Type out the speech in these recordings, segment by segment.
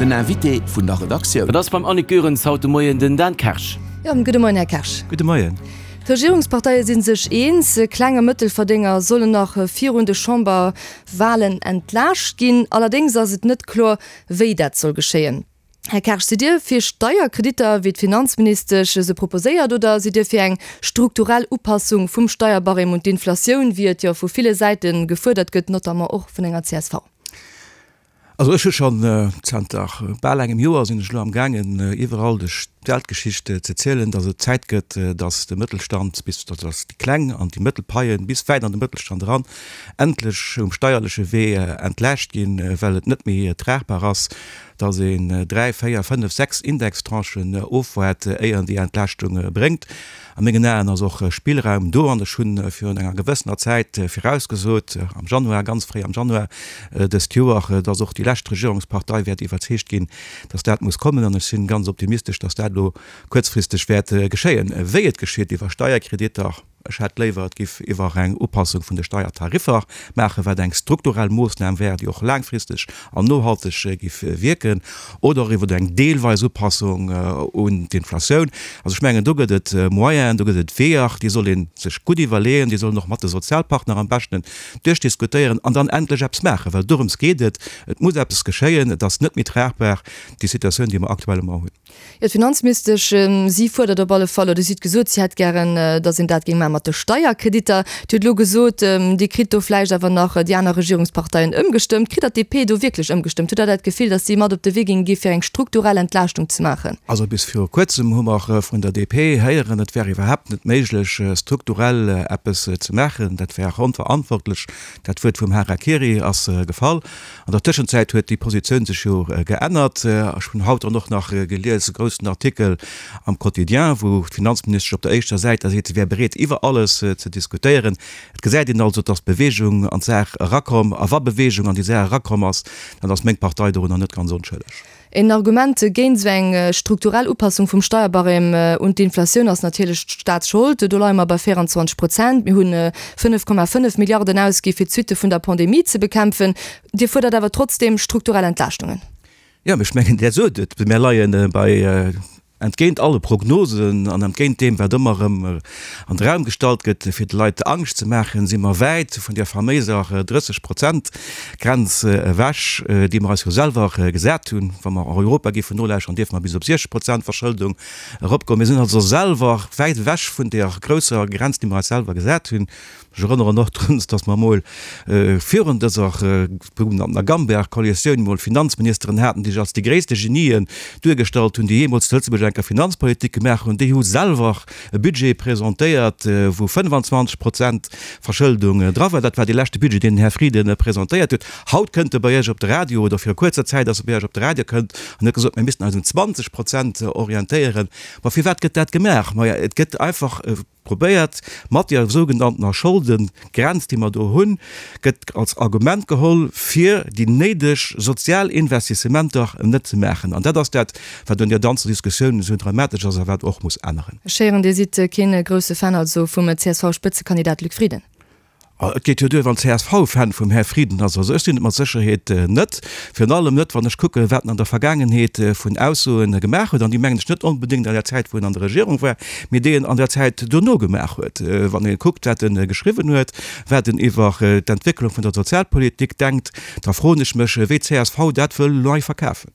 Den Invité vun der Redaktioun. Dat ass beim Annick Goerens haut de Moien den Dan Kersch. Jo, gudde Moien, Här Kersch. Gudde Moien. D'Regierungsparteie si sech eens, Kleng a Mëttelverdénger sollen nach virun de Chamberwalen entlaascht ginn. Allerdéngs ass et net kloer, wéi dat soll geschéien. Här Kersch, sidd Dir fir Steierkreditter, wéi d'Finanzministesch se proposéiert, oder sidd Dir fir eng strukturell Upassung vum Steierbarème un d'Inflatioun, wéi et jo vu ville Säite gefuerdert gëtt, notamment och vun enger csv? Also ech hu schonn zanter bal engem Joer sinn ech elo amgaangen iwwerall duerch d'Weltgeschicht ze zielen, datt et Zäit gëtt, datt de Mëttelstand bis, datt déi kleng an déi mëttel Paien bis wäit an de Mëttelstand eran endlech um steierleche Wee entlaascht ginn, well et net méi tragbar ass, dass een dräi, véier, fënnef, sechs Indextranchen ofwaart, éier en déi Entlaaschtung bréngt. A mengen Aen ass och Spillraum do an ech hu virun enger gewëssener Zäit virausgesot, am Januar, ganz fréi am Januar dëst Joer, dass och déi lescht Regierungspartei wäert iwwerzeegt ginn, dass dat muss kommen. An ech si ganz optimistesch, dass dat elo kuerzfristeg wäert geschéien. Wéi et geschitt, iwwer Steierkreditter, Ech hätt léiwer, et giff iwwer eng Upassung vun de Steiertariffer maachen, wat eng strukturell Moossnam wär, déi och laangfristeg an nohalteg giff wierken, oder och iwwer eng deelweis Upassung un d'Inflatioun. Also ech mengen, do gëtt et Moyenen, do gëtt et Weeër, déi soll ee sech gutt iwwerleeën, déi soll een och mat de Sozialpartner am beschten duerchdiskutéieren an dann endlech eppes maachen, well dorëms geet et. Et muss eppes geschéien, et ass net méi tragbar, déi Situatioun, déi mer aktuellement hunn. Jo, d'Finanzministesch, si fuerdert op alle Fall, oder si huet gesot, si hätt gären, datt een dat géing maache mat de Steierkreditter. Dir hutt elo gesot, Dir kritt do vläicht awer nach déi aner Regierungsparteien ëmgestëmmt. Kritt Der d'DP do wierklech ëmgestëmmt? Hutt Der dat Gefill, datt si mat op de Wee géinge gi fir eng strukturell Entlaaschtung ze maachen? Also bis viru kuerzem hu mer vun der DP héieren, et wär iwwerhaapt net méiglech, strukturell eppes ze maachen. Dat wär onverantwortlech. Dat Wuert vum Harakiri ass gefall. An der Tëschenzäit huet déi Positioun sech jo geännert. Ech hunn haut dann och nach gelies e groussen Artikel am Quotidien, wou d'Finanzministesch op der éischter Säit da seet, si wär bereet iwwer alles ze diskutéieren. Et gesäit een also, dass Beweegung an d'Saach erakomm. A wa Beweegung an déi Saach erakomm ass, dann ass meng Partei dorunner net ganz onschëlleg. Een Argument géint esou eng strukturell Upassung vum Steierbarème un d'Inflatioun ass natierlech d'Staatsschold. Do leie mer bei 24 Prozent. Mir hu 5,5 Milliarden ausgi fir d'Suitte vun der Pandemie ze bekämpfen. Dir fuerdert awer trotzdeem strukturell Entlaaschtungen. Jo, mee ech mengen, Där sot et, mir leie bei, entgéint alle Prognosen an entgéint deem, wat ëmmer erëm an de Raum gestallt gëtt, fir de Leit Angscht ze maachen, si mer wäit vun där faméiser 30 Prozent Grenz ewech, déi mer eis jo selwer gesat hunn. Wa mer Europa géifen nolauschteren, dierfe mer bis op 60 Prozent Verschëldung eropgoen. Mir sinn also selwer wäit ewech vun där grousser Grenz, déi mer eis selwer gesat hunn. Ech erënneren och drun, dass mer emol virun dëser sougenanntener Gamberg-Koalitioun emol Finanzministeren haten, déi sech als déi gréisste Genien duergestallt hunn, déi jeemools zu Lëtzebuerg eng Kéier Finanzpolitik gemaach hunn. Déi hu selwer e Budget presentéiert, wou 25 Prozent Verschëldung dra war. Dat war dee leschte Budget, deen den Här Frieden presentéiert huet. Haut kënnt e bei Iech op de Radio, oder viru kuerzer Zäit ass e bei Iech op de Radio kënnt an huet gesot, mir missten eis un 20 Prozent orientéieren. Ma firwat gëtt dat gemaach? Maja, et gëtt einfach probéiert, mat deer sougenanntener Scholdengrenz, déi mer do hunn, gëtt als Argument geholl, fir déi néideg sozial Investissementer net ze maachen. An dat ass dat, wat un deer ganzer Diskussioun esou dramatesch ass a wat och muss änneren. Ech héieren, Dir sidd keen grousse Fan also vum CSV-Spëtzekandidat Luc Frieden. Et geet jo duer, wann csv Fan vum Här Frieden ass. Also ech sinn et mat Sécherheet net. Virun allem net, wann ech kucken, wat en an der Vergaangenheet vun Aussoen gemaach huet, an déi mengen ech net onbedéngt an der Zäit, wou en an der Regierung war, mee déi en an der Zäit dono gemaach huet. Wann ee kuckt, wat e geschriwwen huet, wat en iwwer d'Entwécklung vun der Sozialpolitik denkt, da froen ech mech, wéi csv dat wëll nei verkafen.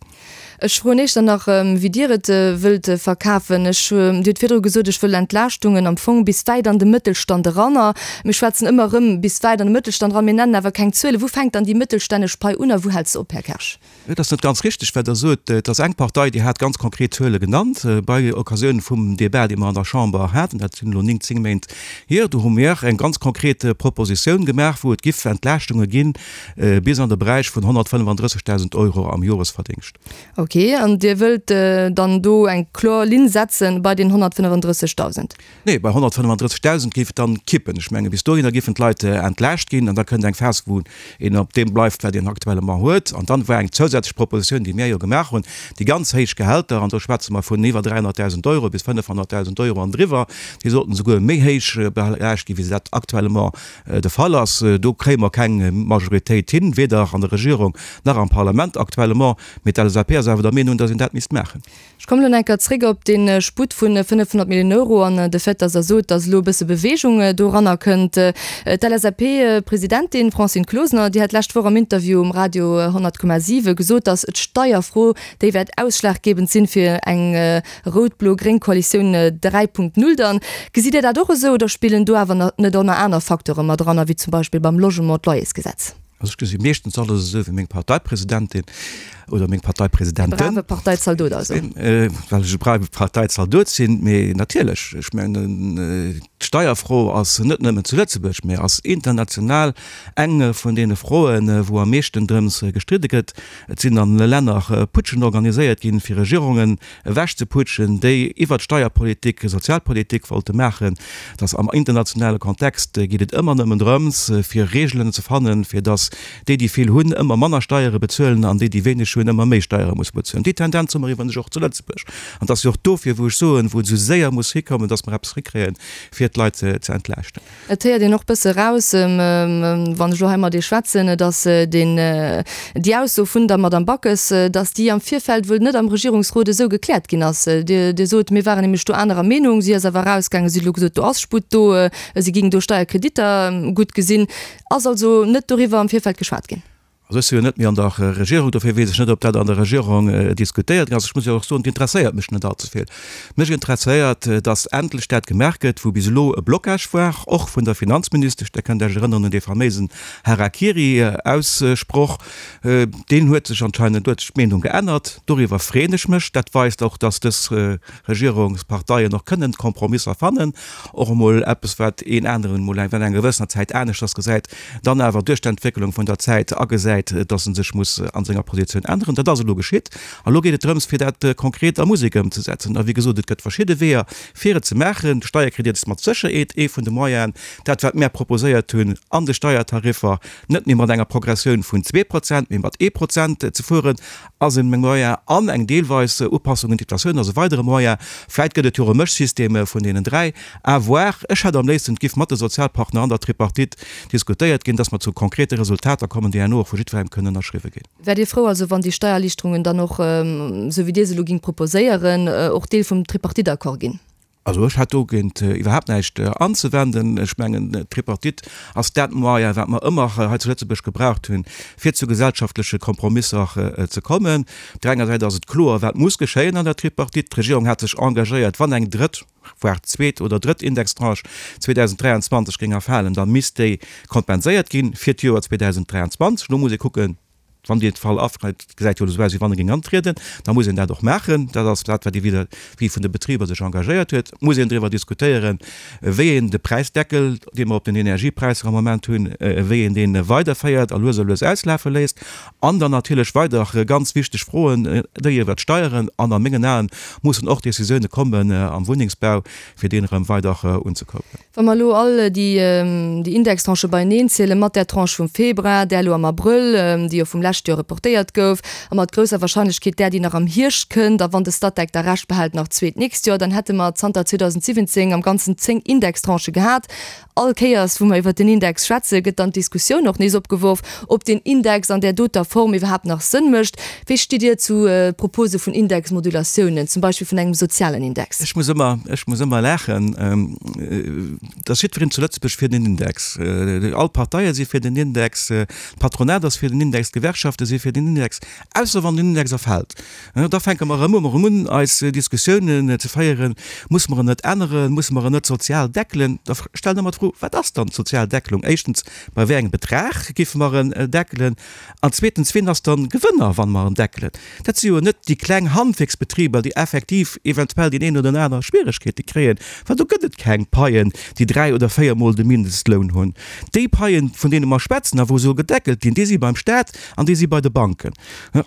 Ech froen Iech dann nach, wéi Dir et wëllt verkafen. Ech, Dir hutt virdru gesot, ech wëll Entlaaschtungen am Fong bis wäit an de Mëttelstand eran. A mir schwätzen ëmmer erëm bis wäit an de Mëttelstand eran, mir nennen awer keng Zuelen. Wou fänkt dann déi mëttelstännesch Pai un a wou hält se op, Här Kersch? Et ass net ganz richteg, wat Der sot. Et ass eng Partei, déi hat ganz konkret Zuele genannt bei Occasioun vum Débat, dee mer an der Chamber haten. Dat sinn elo 9, 10 Méint hier. Do hu mir eng ganz konkret Propositioun gemaach, wou et giff Entlaaschtunge ginn, Bis an de Beräich vun 135.000 Euro am Joresverdingscht. Ok, an Dir wëllt dann do eng kloer Linn setzen bei den 135.000? Nee, bei 135.000 géif et dann kippen. Ech menge bis dohinner géifen d'Leit entlaascht ginn an da kënnt eng Phas, wou een op deem bleift, wat een actuellement huet. An dann war eng zousätzlech Propositioun, déi mir jo gemaach hunn, déi ganz héich Gehälter, an do schwätze mer vun iwwer 300.000 Euro bis 500.000 Euro an driwwer, déi sollten esouguer méi héich belaascht ginn, wéi se dat actuellement de Fall ass. Do kréie mer keng Majoritéit hin, weder an der Regierung nach am Parlament actuellement. Mee d'LSAP ass awer. awer der Meenung, datt een dat misst maachen. Ech kommen elo nach eng Kéier zréck op dee Sputt vu 500 Milliounen Euro an de Fait, datt Der sot, datt elo e bësse Beweegung doranner kënnt. D'LSAP-Presidentin Francine Closener, déi hat d'lescht Woch am Interview um Radio 100,7 gesot, datt d'Steierfro déi wäert ausschlaggebend sinn fir eng rout-blo-gréng Koalitioun 3.0 dann. Gesitt Dir dat och esou oder spillen do awer net och nach aner Facteure mat eran, wéi zum Beispill beim Logement d'Loyersgesetz? Also ech gesi meeschtens alles esou wéi meng Parteipresidentin oder meng Parteipresidenten. E brave Parteizaldot also. Well ech e brave Parteizaldot sinn. Mee natierlech, ech mengen d'Steierfro ass net nëmmen zu Lëtzebuerg, mee ass international eng vun deene Froen, wou am meeschten drëms gestridde gëtt. Et sinn an Länner Putschen organiséiert ginn, fir Regierungen ewechzeputschen, déi iwwert Steierpolitik Sozialpolitik wollte maachen, dass am internationale Kontext geet et ëmmer nëmmen drëms, fir Regeln ze fannen, fir dass déi, déi vill hunn, ëmmer manner Steiere bezuelen an déi, déi wéineg hunn, ëmmer méi Steiere musse bezuelen. Déi Tendenz hu mer iwwerens och zu Lëtzebuerg. An et ass jo och dofir, wou ech soen, wou et esou séier muss hikommen, dass mer eppes hikréien, fir d'Leit ze entlaaschten. Et héiert een och bësse eraus, wann ech elo hei mat Iech schwätzen, datt deen, déi Ausso vun der Madame Backes, datt déi am Virfeld wuel net am Regierungsrot esou gekläert ginn ass. Dir, Dir sot, mir waren nämlech do anerer Meenung. Si ass awer erausgaangen, si huet elo gesot, do ass Sputt do, si géing do Steierkreditter gutt gesinn. Ass also net doriwwer am Virfeld geschwat ginn? Also ech si jo net méi an der Regierung, dofir weess ech net, ob dat an der Regierung diskutéiert ginn ass. Ech muss jo och soen, et interesséiert mech net allze vill. Mech interesséiert, datt endlech dat gemaach gëtt, wou bis elo e Blocage war, och vun der Finanzministesch. Der kënnt Iech erënneren un dee faméisen Harakiri-Aussproch. Deen huet sech anscheinend, do huet sech d'Meenung geännert. Doriwwer freeën ech mech. Dat weist och, datt dës Regierungsparteien och kënnen Kompromisser fannen, och emol eppes, wat een aneren emol während enger gewëssener Zäit aneschters gesäit. dann awer duerch d'Entwécklung vun der Zäit agesäit, dass e sech muss a senger Positioun änneren. Dat ass elo geschitt. A lo geet et drëms, fir dat konkret a Musek ëmzesetzen. A wéi gesot, et gëtt verschidde Weeër, fir et ze maachen. De Steierkredit ass mat Sécherheet ee vun de Moyenen. Dat, wat mär proposéiert hunn an de Steiertariffer, net méi mat enger Progressioun vun 2%, mee mat 1% ze fueren, ass e Moyen an eng deelweis Upassung un d'Inflatioun ass e weidere Moyen. Vläit gëtt et jo och e Mëschsystem vun deenen 3. À voir. Ech hätt am léifsten, et giff mat de Sozialpartner an der Tripartite diskutéiert ginn, dass mer zu konkrete Resultater kommen, déi herno och vu jiddwerengem kënnen ënnerschriwwe ginn. Wäert Dir frou also, wann déi Steiererliichterungen dann och, esou wéi Dir se elo gingt proposéieren, och Deel vum Tripartite-Accord ginn? Also ech hätt dogéint iwwerhaapt näischt anzewenden. Ech mengen, d'Tripartite ass dat Moyen, wat mer ëmmer hei zu Lëtzebuerg gebraucht hunn, fir zu gesellschaftleche Kompromisser ze kommen. Op där enger Säit ass et kloer, wat muss geschéien an der Tripartite. D'Regierung hat sech engagéiert, wann eng drëtt, voire zweet oder drëtt Indextranche 2023 géing erfalen, da misst déi kompenséiert ginn fir d'Joer 2023. Elo muss ee kucken, Wann dee Fall afreit, et gesäit jo elo esou aus, wéi wann e géing antrieden, da muss een dat och maachen. Dat ass dat, wat ee vis-à-vis vun de Betriber sech engagéiert huet. Et muss een driwwer diskutéieren, wéi een de Präisdeckel, dee mer op den Energiepräisser am Moment hunn, wéi een dee weiderféiert a lues a lues auslafe léisst. An dann natierlech weider ganz wichteg Froen, déi iwwert d'Steieren. An a mengen Aen mussen och Décisioune kommen am Wunnengsbau, fir deen erëm weider unzekurbelen. Wa mer elo all déi Indextranchë beieneen zielen, mat där Tranche vum Februar, där elo am Abrëll, déi jo vum leschte Joer reportéiert gouf, a mat grousser Wahrscheinlechkeet där, déi nach am Hierscht kënnt, a wann de Statec da Recht behält, nach zwee d'nächst Joer, dann hätte mer zanter 2017 am Ganzen 10 Indextranchë gehat. All Kéiers, wou mer iwwert den Index schwätzen, gëtt dann d'Diskussioun och nees opgeworf, ob deen Index an där doter Form iwwerhaapt nach Sënn mécht. Wéi stitt Dir zu Propose vun Indexmodulatiounen, zum Beispill vun engem sozialen Index? Ech muss ëmmer, ech muss ëmmer laachen, et ass jiddwereen zu Lëtzebuerg fir den Index. All d'Parteie si fir den Index, d'Patronat ass fir den Index, d'Gewerkschafte si fir den Index, ausser wann den Index erfält. Da fänke mer erëm erëm un, eis Diskussiounen ze féieren, Musse mer en net änneren? Musse mer en net sozial deckelen? Da stellen ech mer d'Fro, Wat ass dann d'sozial Deckelung? Éischtens, bei wéi engem Betrag géife mer en deckelen? An zweetens, wien ass dann Gewënner, wann mer en deckelen? Dat si jo net déi kleng Handwierksbetriber, déi effektiv eventuell deen een oder den aner Schwieregkeete kréien, well do gëtt et keng Paien, déi dräi oder véiermol de Mindestloun hunn. Déi Paien, vun deene mer schwätzen a wou soll gedeckelt ginn, déi si beim Staat an déi si bei de Banken.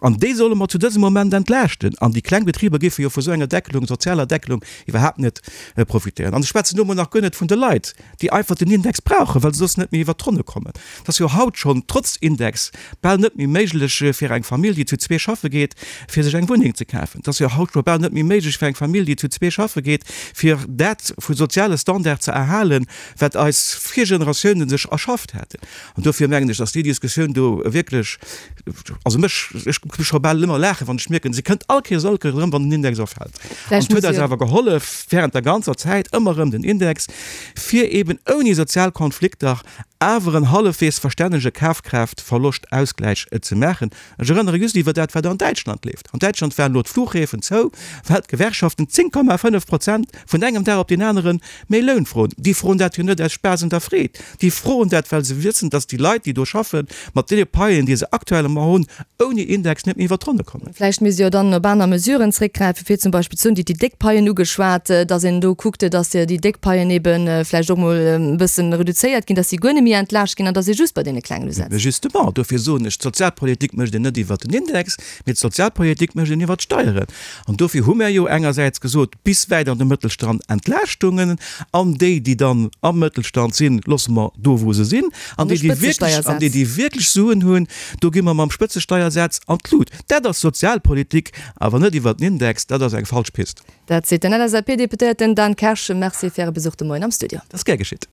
An déi solle mer zu dësem Moment entlaaschten. An déi kleng Betriber géife jo vu sou enger Deckelung, sozialer Deckelung, iwwerhaapt net profitéieren. An ech schwätzen do emol nach guer net vun de Leit, déi einfach. einfach den Index brauchen, well se soss net méi iwwert d'Ronne kommen. Et ass jo haut schonn, trotz Index, bal net méi méiglech fir eng Famill, déi zu zwee schaffe geet, fir sech eng Wunneng ze kafen. Et ass jo haut scho bal net méi méiglech fir eng Famill, déi zu zwee schaffe geet, fir dat vu soziale Standard ze erhalen, wat eis Virgeneratiounen sech erschafft haten. An dofir mengen ech, dass déi Diskussioun do wierklech, also mech, ech muss scho bal ëmmer laachen, wann ech mierken, se kënnt all Kéiers, all Kéiers erëm, wann den Index erfält. An et huet eis awer gehollef, während der ganzer Zäit ëmmer erëm den Index, fir eben ouni sozial Konflikter awer en hallefweegs verstännege Kafkraaftverloscht-Ausgläich ze maachen. Ech erënnere just iwwer dat, wat an Däitschland leeft. An Däitschland waren elo d'Flughäfen zou, well d'Gewerkschaften 10,5 Prozent vun engem Dag op deen anere méi Loun froen. Déi froen dat jo net aus Spaass un der Freed. Déi froen dat, well se wëssen, datt déi Leit, déi do schaffen, mat deene Paien, déi se aktuellement hunn, ouni Index net méi iwwer d'Ronne kommen. Vläicht misst ee jo dann op aner Mesuren zréckgräifen, fir zum Beispill ze soen, Dir hutt déi déck Paien ugeschwat, datt een do kuckt, datt déi déck Paien ebe vläicht och mol e bësse reduzéiert ginn, datt si guer net méi entlaascht ginn an datt ee just bei deene klengen usetzt. Mä justement, dofir soen ech, d'Sozialpolitik mécht een net iwwert den Index, mee d'Sozialpolitik mécht een iwwert d'Steieren. An dofir hu mär jo engersäits gesot, bis wäit an de Mëttelstand Entlaaschtungen, an déi, déi dann am Mëttelstand sinn, loosse mer do, wou se sinn, an déi, déi wierklech, an déi, déi wierklech Suen hunn, do gi mer mam Spëtzesteiersaz an d'Lut. Dat ass Sozialpolitik, awer net iwwert den Index, dat ass eng falsch Pist. Dat seet den LSAP-Deputéierten Dan Kersch. Merci fir Äre Besuch de Moien am Studio. Dat ass gär geschitt.